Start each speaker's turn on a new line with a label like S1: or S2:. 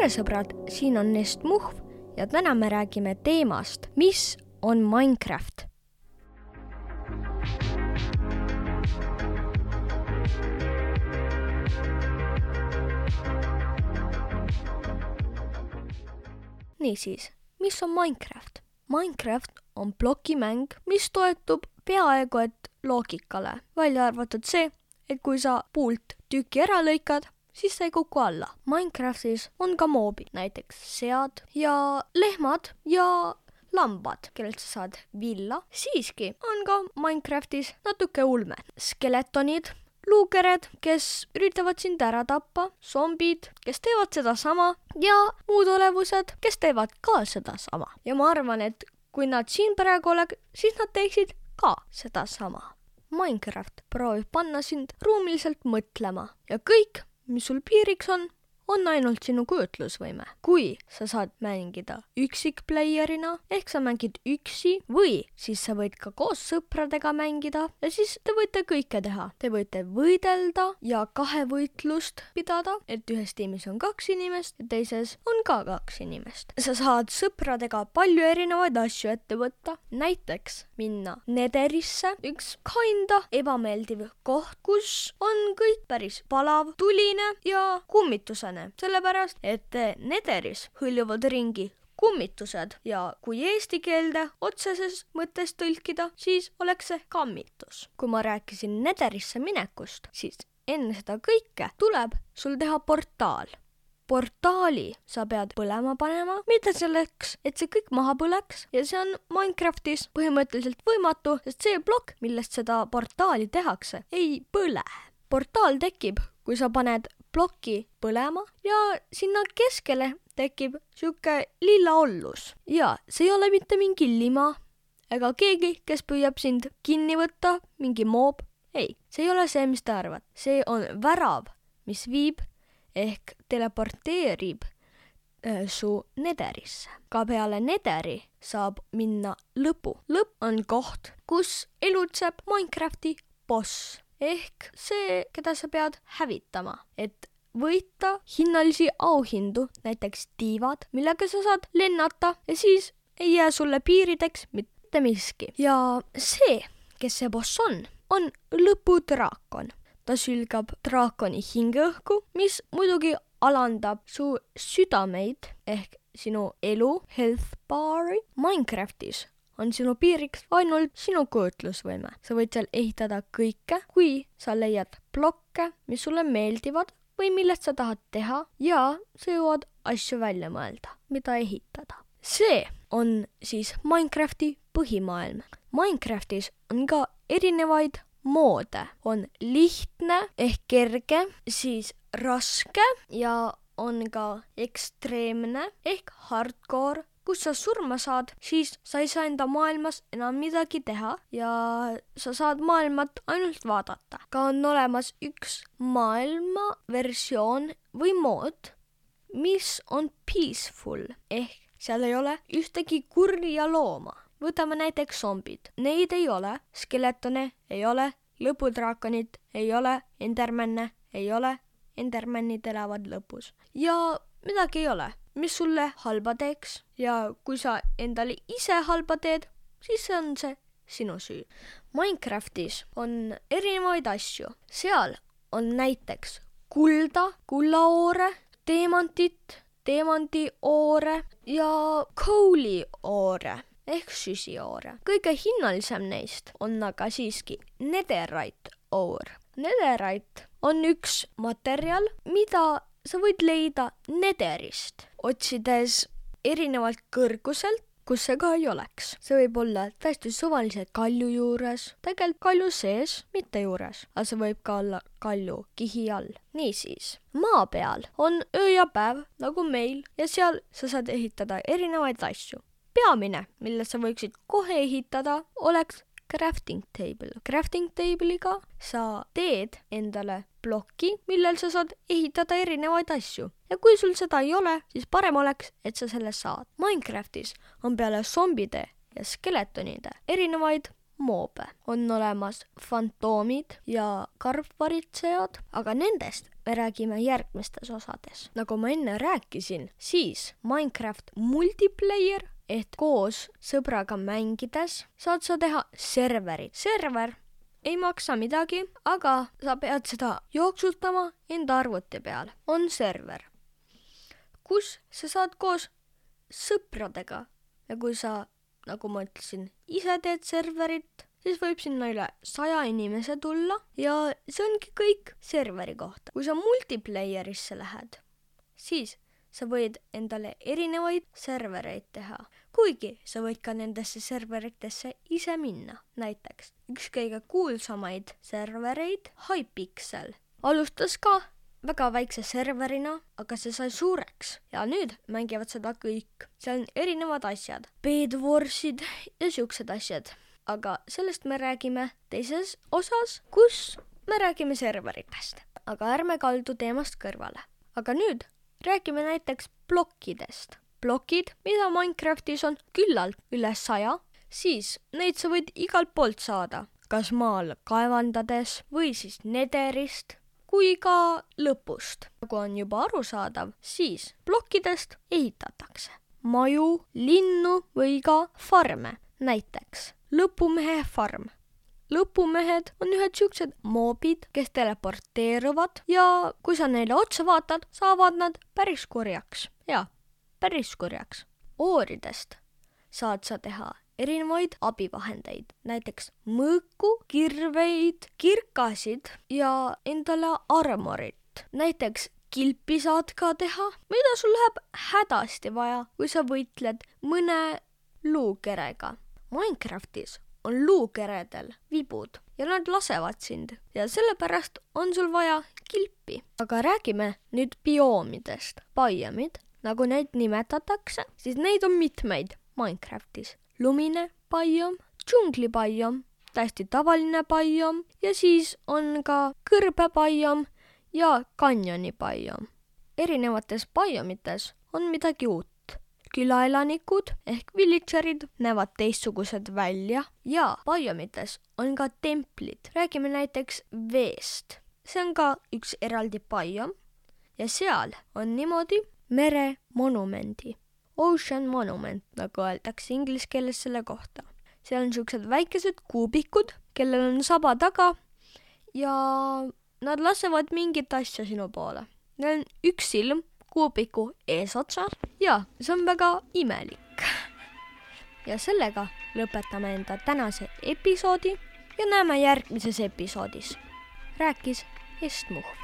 S1: tere sõbrad, siin on Nest Muhv ja täna me räägime teemast, mis on Minecraft. Niisiis, mis on Minecraft? Minecraft on plokimäng, mis toetub peaaegu et loogikale, välja arvatud see, et kui sa puult tüki ära lõikad, siis sa ei kuku alla. Minecraftis on ka moobid, näiteks sead ja lehmad ja lambad, kellelt sa saad villa. Siiski on ka Minecraftis natuke ulme. Skeletonid, luukered, kes üritavad sind ära tappa, zombid, kes teevad seda sama ja muud olevused, kes teevad ka seda sama. Ja ma arvan, et kui nad siin praegu oleks, siis nad teeksid ka seda sama. Minecraft proovib panna sind ruumiliselt mõtlema ja kõik, mis sul piiriks on ainult sinu kujutlusvõime. Kui sa saad mängida üksikplayerina, ehk sa mängid üksi või siis sa võid ka koos sõpradega mängida ja siis te võite kõike teha. Te võite võidelda ja kahevõitlust pidada, et ühes tiimis on 2 inimest ja teises on ka 2 inimest. Sa saad sõpradega palju erinevaid asju ette võtta, näiteks minna Netherisse, üks kinda ebameeldiv koht, kus on kõik päris palav, tuline ja kummitusene. Sellepärast, et Netheris hõljuvad ringi kummitused ja kui eesti keelde otseses mõttes tõlkida, siis oleks see kammitus. Kui ma rääkisin Netherisse minekust, siis enne seda kõike tuleb sul teha portaal. Portaali sa pead põlema panema, mitte selleks, et see kõik maha põleks ja see on Minecraftis põhimõtteliselt võimatu, sest see plokk, millest seda portaali tehakse, ei põle. Portaal tekib, kui sa paned ploki põlema ja sinna keskele tekib siuke lilla ollus. Ja see ei ole mitte mingi lima ega keegi, kes püüab sind kinni võtta, mingi moob. Ei, see ei ole see, mis te arvad. See on värav, mis viib ehk teleporteerib su Netherisse. Ka peale Netheri saab minna lõpu. Lõpp on koht, kus elutseb Minecrafti boss. Ehk see, keda sa pead hävitama, et võita hinnalisi auhindu, näiteks tiivad, millega sa saad lennata ja siis ei jää sulle piirideks mitte miski. Ja see, kes see boss on lõpudraakon. Ta sülgab draakoni hingeõhku, mis muidugi alandab su südameid ehk sinu elu, health bar'i. Minecraftis on sinu piiriks ainult sinu kujutlusvõime. Sa võid seal ehitada kõike, kui sa leiad blokke, mis sulle meeldivad või millest sa tahad teha ja sa jõuad asju välja mõelda, mida ehitada. See on siis Minecrafti põhimaailm. Minecraftis on ka erinevaid moode. On lihtne ehk kerge, siis raske ja on ka ekstreemne ehk hardcore. Kus sa surma saad, siis sa ei saa enda maailmas enam midagi teha ja sa saad maailmat ainult vaadata. Ka on olemas üks maailma versioon või mood, mis on peaceful, ehk seal ei ole ühtegi kurja looma. Võtame näiteks zombid. Neid ei ole, skeletone ei ole, lõpudraakonid ei ole, endermanne ei ole, endermannid elavad lõpus. Ja midagi ei ole, mis sulle halba teeks ja kui sa endale ise halba teed, siis on see sinu süü. Minecraftis on erinevaid asju. Seal on näiteks kulda, kullaoore, teemantit, teemandioore ja coalioore ehk süsioore. Kõige hinnalisem neist on aga siiski netherite ore. Netherite on üks materjal, mida sa võid leida Netherist, otsides erinevalt kõrguselt, kus see ka ei oleks. See võib olla täiesti suvalise kalju juures, tegelikult kalju sees, mitte juures, aga see võib ka olla kalju kihi all. Niisiis, maa peal on öö ja päev nagu meil ja seal sa saad ehitada erinevaid asju. Peamine, mille sa võiksid kohe ehitada, oleks crafting table. Crafting table'iga sa teed endale ploki, millel sa saad ehitada erinevaid asju. Ja kui sul seda ei ole, siis parem oleks, et sa selle saad. Minecraftis on peale zombide ja skeletonide erinevaid moobe. On olemas fantoomid ja karvvaritsejad, aga nendest me räägime järgmistes osades. Nagu ma enne rääkisin, siis Minecraft multiplayer ehk koos sõbraga mängides saad sa teha serverit. Server ei maksa midagi, aga sa pead seda jooksutama enda arvuti peal. On server, kus sa saad koos sõpradega ja kui sa, nagu ma ütlesin, ise teed serverit, siis võib sinna üle 100 inimese tulla ja see ongi kõik serveri kohta. Kui sa multiplayerisse lähed, siis sa võid endale erinevaid servereid teha, kuigi sa võid ka nendesse serveritesse ise minna. Näiteks üks kõige kuulsamaid servereid, Hypixel, alustas ka väga väikse serverina, aga see sai suureks ja nüüd mängivad seda kõik. Seal on erinevad asjad, Bedwarsid ja siuksed asjad. Aga sellest me räägime teises osas, kus me räägime serveritest. Aga ärme kaldu teemast kõrvale. Aga nüüd räägime näiteks plokkidest. Plokid, mida Minecraftis on küllalt üle 100, siis neid sa võid igalt poolt saada, kas maal kaevandades või siis nederist kui ka lõpust. Nagu on juba arusaadav, siis plokkidest ehitatakse maju, linnu või ka farme. Näiteks lõpumehe farm. Lõpumehed on ühed siuksed moobid, kes teleporteeruvad ja kui sa neile otsa vaatad, saavad nad päris kurjaks. Jaa, päris kurjaks. Ooridest saad sa teha erinevaid abivahendeid, näiteks mõõku, kirveid, kirkasid ja endale armorit. Näiteks kilpi saad ka teha, mida sul läheb hädasti vaja, kui sa võitled mõne luukerega. Minecraftis on luukeredel vibud ja nad lasevad sind ja sellepärast on sul vaja kilpi. Aga räägime nüüd bioomidest. Biomid, nagu neid nimetatakse, siis neid on mitmeid Minecraftis. Lumine biom, džunglibiom, täiesti tavaline biom ja siis on ka kõrbebiom ja kanjoni biom. Erinevates biomites on midagi uut. Külaelanikud ehk villagerid näevad teistsugused välja ja biomites on ka templid. Räägime näiteks veest. See on ka üks eraldi biom ja seal on niimoodi meremonumendi. Ocean monument, nagu öeldakse inglise keeles selle kohta. Seal on siuksed väikesed kuubikud, kellel on saba taga ja nad lasevad mingit asja sinu poole. Neil on üks silm kuubiku eesotsas ja see on väga imelik. Ja sellega lõpetame enda tänase episoodi ja näeme järgmises episoodis. Rääkis Estmuh.